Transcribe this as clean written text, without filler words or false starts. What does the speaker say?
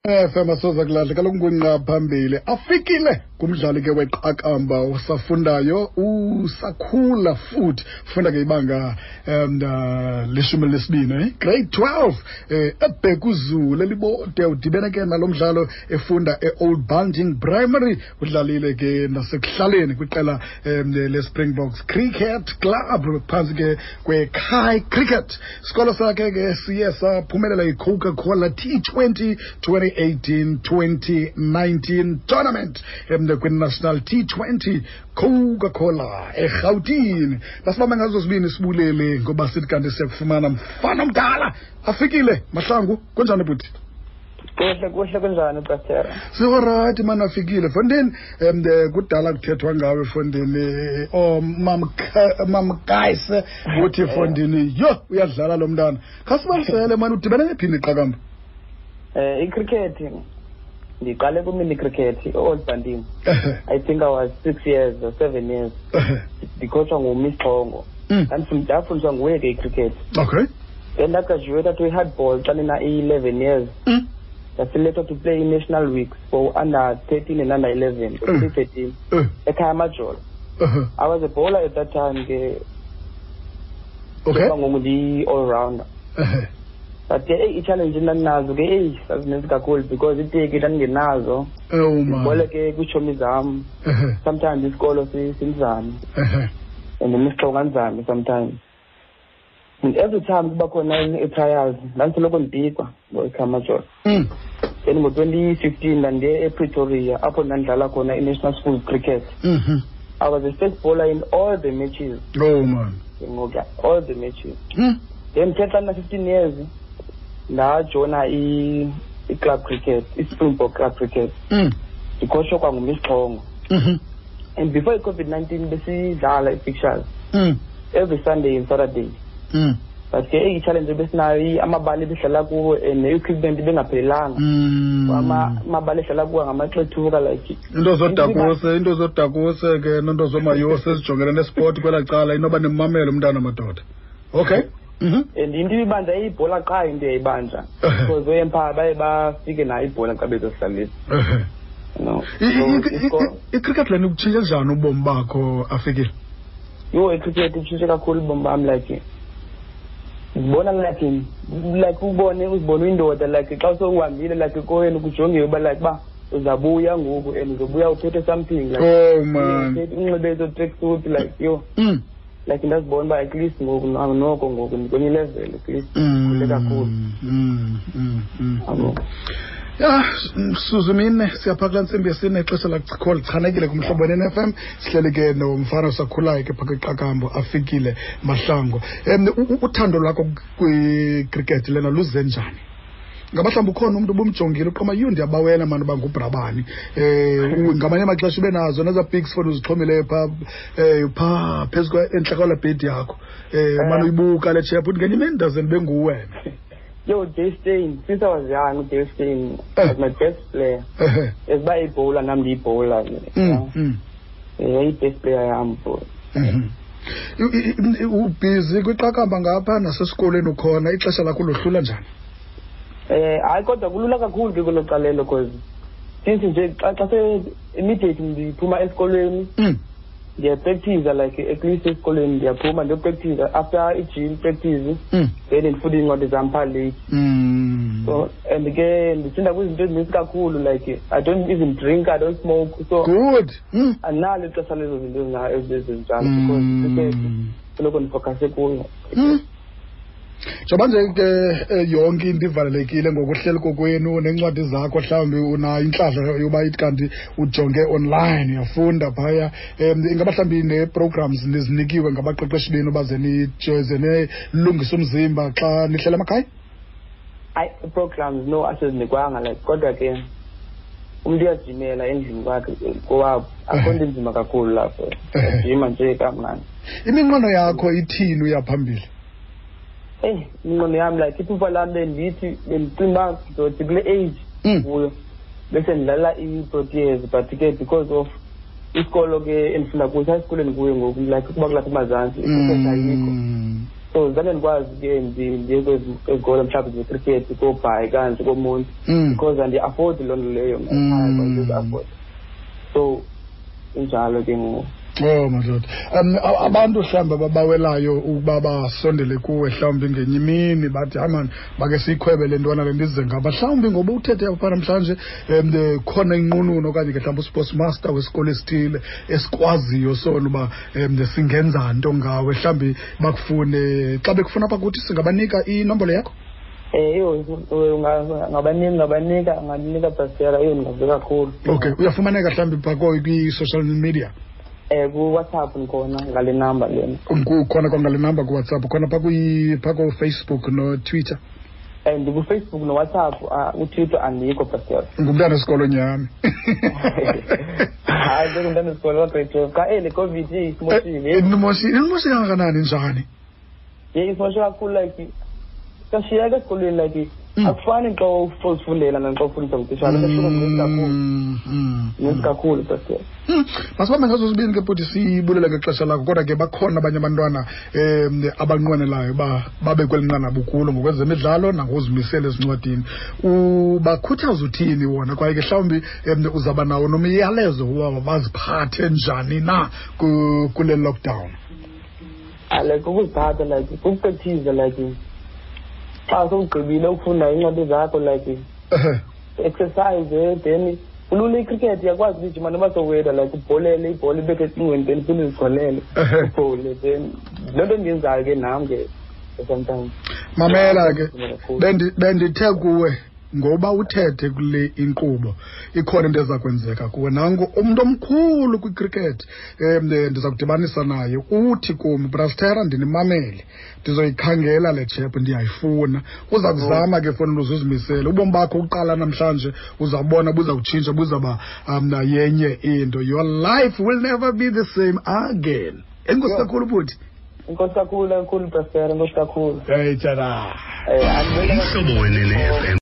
FM asoza kulahla kaloku ngungqa phambili afikile kumdlali ke weqakamba osafundayo usakhula futhi funda ke ibanga leshumi lesibini grade 12 eBhekuzulu elibode udibene ke nalo mdlalo efunda e-Old Bunting Primary udlalile ke nasekuhlaleni kwiqela le-Springboks Cricket Club phantsi ke kwe-Kai Cricket. Sikolo sakhe ke siye saphumelela i-Coca-Cola T20 2018-2019 tournament kwi-National T20 Coca-Cola eRhawutini. Basibambe ngazo zibini sibulele ngoba sithi kanti siyakufumana mfana omdala afikile Mahlangu, kunjani bhuti? Kuhle kuhle, kunjani Pastor? Sikorayithi mani afikile fondini. Kudala kuthethwa ngawe fondini, mamkayise uthi fondini yho uyadlala lo mntana. Khasibalisele mani, udibene nephini iqakamba? I-cricket ndiqale ku-mini cricket e-Old Bunting. I think I was 6 years or 7 years. Ndikhotshwa nguMiss Xongo. Ndafundiswa nguye ke i-cricket. Then ndagraduate to i-hardball xa ndina i-11 years. Ndaselected to play in-national weeks for under 13 and under 11, 2013. Ekhaya Majolo. I was a bowler at that time ke. Ngoku ndiyi-all-rounder. But ke eyi i-challenge endandinazo ke eyi zazininzi kakhulu because iteki ndandingenazo. Ndibole ke kwiitshomi zam. Sometimes isikolo sinzame. And imisixoko anzame sometimes. And every time kuba khona i-trials ndandisoloko ndipikwa ngoEkhaya Majolo. Then ngo-2015 ndandiye ePretoria apho ndandidlala khona i-National Schools Cricket. I was a first bowler in all the matches. Oh man. Ngoku all the matches. Then ke xa ndina-15 years ndajoyina i-club cricket, i-Springbok club cricket. Ndikhotshwa kwanguMiss Xongo. And before i-COVID-19 besidlala i-fixtures every Sunday and Saturday. But ke i-challenge ebesinayo amabala ebesidlala kuwo and ne-equipment ibengaphelelanga. Amabala esidlala kuwo ngamaxethuka like into zodakuse ke nento zomayose ezijongene nesport kwelaa cala inoba nimamele umntana madoda. Okay. And into ibibanja ibhola qha into eyayibanja. Because oempire baye bafike nayo ibhola xa bezosihlalisa. No. I-cricket lena ikutshintshe njani ubomi bakho afikile? Yho, i-cricket itshintshe kakhulu ubomi bam like ndibona like ubone uzibone uyindoda like xa sewuhambile like koyeni kujongiwe uba like uba uzabuya ngoku and uzobuya uphethe something like oh man unxibe ezo tracksuit like yho. Like ndazibona uba at least ngoku noko ngoku ndikwenye level at least khule kakhulu. Ya, Suzumine siyapha kulaa ntsimbi yesine ixesha lakho lichanekile kumhlobo ne-FM. Sihleli ke nomfana osakhulayo ke phaa kwiqakambo afikile Mahlangu. Uthando lwakho kwicricket lena luze njani? Ngaba mhlawumbi ukhona umntu ubumjongile uqoma yho ndiyabawela mani uba ngubrabani. Ngamanye amaxesha ube nazo nezaa pics foni uzixhomileyo phaa phaa phezu entla kwalaa bhedi yakho. Mane uyibuka le chep uthi ngenye imini ndaze ndibe nguwena. Yo, Dale Steyn, since I was young, Dale Steyn was my best player. As by a bowler, I'm the bowler. Yeah, best player I am, bro. Ubhizi kwiqakamba ngapha nasesikolweni ukhona, ixesha lakho lohlula njani? Hayi kodwa kulula kakhulu ke kwelo calelo because since nje xa se immediately ndiphuma esikolweni ndiyapractice like at least esikolweni ndiyaphuma ndiyopractice after i-gym practice then ndifunda iincwadi zam phaa late. So and ke ndisinda kwizinto ezininzi kakhulu like I don't even drink, I don't smoke, so good. Andinalo ixesha lezo zinto ezinjalo because soloko ndifocuse kuyo. Njengoba nje ke yonke into ivalelekile ngokuhleli kokwenu nencwadi zakho mhlawumbi unayo intlahla yoba ithi kanti ujonge online uyafunda phaya. Ingaba mhlawumbi nee-programs nizinikiwe ngabaqeqeshi benu baze nilungise umzimba xa nihlela emakhaya? Hayi, programs no asizinikwanga like kodwa ke umntu uyajimela endlini kwakhe kowabo, akho nto inzima kakhulu lapho, ujima nje kamnandi. Iminqweno yakho ithini uya phambili? Eyi, iminqweno yam like iphupha lam bendithi bendicinga uba ndizothi kule age kuyo bese ndidlala i-Proteas, but ke because of isikolo ke endifunda kuso, esikolweni kuyo ngoku like ukuba kulapha eMazantsi icricket ayikho. So zange ndikwazi ke ndiye kwezikolo mhlawumbi zecricket koBhayi kanje koMonti, because andiyi-afford loo nto leyo mna ekhaya, andizi-afford. So injalo ke ngoku. Oh madoda. Abantu mhlawumbi ababawelayo ukuba basondele kuwe mhlawumbi ngenye imini bathi hayi mani make siyikhwebe le ntwana le ndize ngapha, mhlawumbi ngoba uthethe apha namhlanje khona inqununu okanye ke mhlawumbi usports master wesikolo esithile esikwaziyo sona uba singenza nto ngawe, mhlawumbi bakufune. Xa bekufuna apha kuthi singabanika inombolo yakho? Eyo ngabanika angandinika Pastor, eyo ndingavuya kakhulu. Okay, uyafumaneka mhlawumbi phaa kwi-social media? Ku-WhatsApp ndikhona ngale number lena. Khona kwangale number ku-WhatsApp, khona phaa ko-Facebook no-Twitter? Ndiku-Facebook no-WhatsApp, uTwitter andikho Pastor. Ngumntana wesikolo nyhani. Hayi, ndingumntana wesikolo wa-grade 12. Xa le COVID isimoshile. Inimoshile kangakanani njani? Ye, isimoshe kakhulu, like siyashiyeka esikolweni, like akufani xa uzifundela naxa ufundisa ngutitshala, kuyahluka mninzi kakhulu. Mninzi kakhulu Pastor. Masibambe ngazo zibini ke bhuti, sibulele ngexesha lakho, kodwa ke bakhona abanye abantwana abanqwenelayo uba babe kweli nqanaba ukulo ngokwezemidlalo nangokuzimisela ezincwadini. Ubakhuthaza uthini wona, kwaye ke mhlawumbi uzawuba nawo nomyalezo woba baziphathe njani na kule lockdown? Like ukuziphatha, like ukupractice, like xa sowugqibile ukufunda iincwadi zakho, like exercise, then kulula icricket, uyakwazi ukujima noba sowedwa, like ubholele ibhola ibethe ecingweni, then uphinde uzigolele ubhole, then loo nto endiyenzayo ke nam ke sometimes. Mamela ke, bendithe kuwe ngoba uthethe kule inkqubo ikhona into eza kwenzeka kuwe. Nangu umntu omkhulu kwicricket, ndiza kudibanisa naye, uthi kum, Brastera, ndinimamele, ndizoyikhangela le chep, ndiyayifuna. Uza kuzama ke fona uze uzimisele. Ubomi bakho uqala namhlanje uzawubona buza kutshintsha, buzawuba yenye into. Your life will never be the same again. Enkosi kakhulu bhuti. Enkosi kakhulu, kakhulu Brastera, enkosi kakhulu. Hey tshana. Umhlobo wenene FM.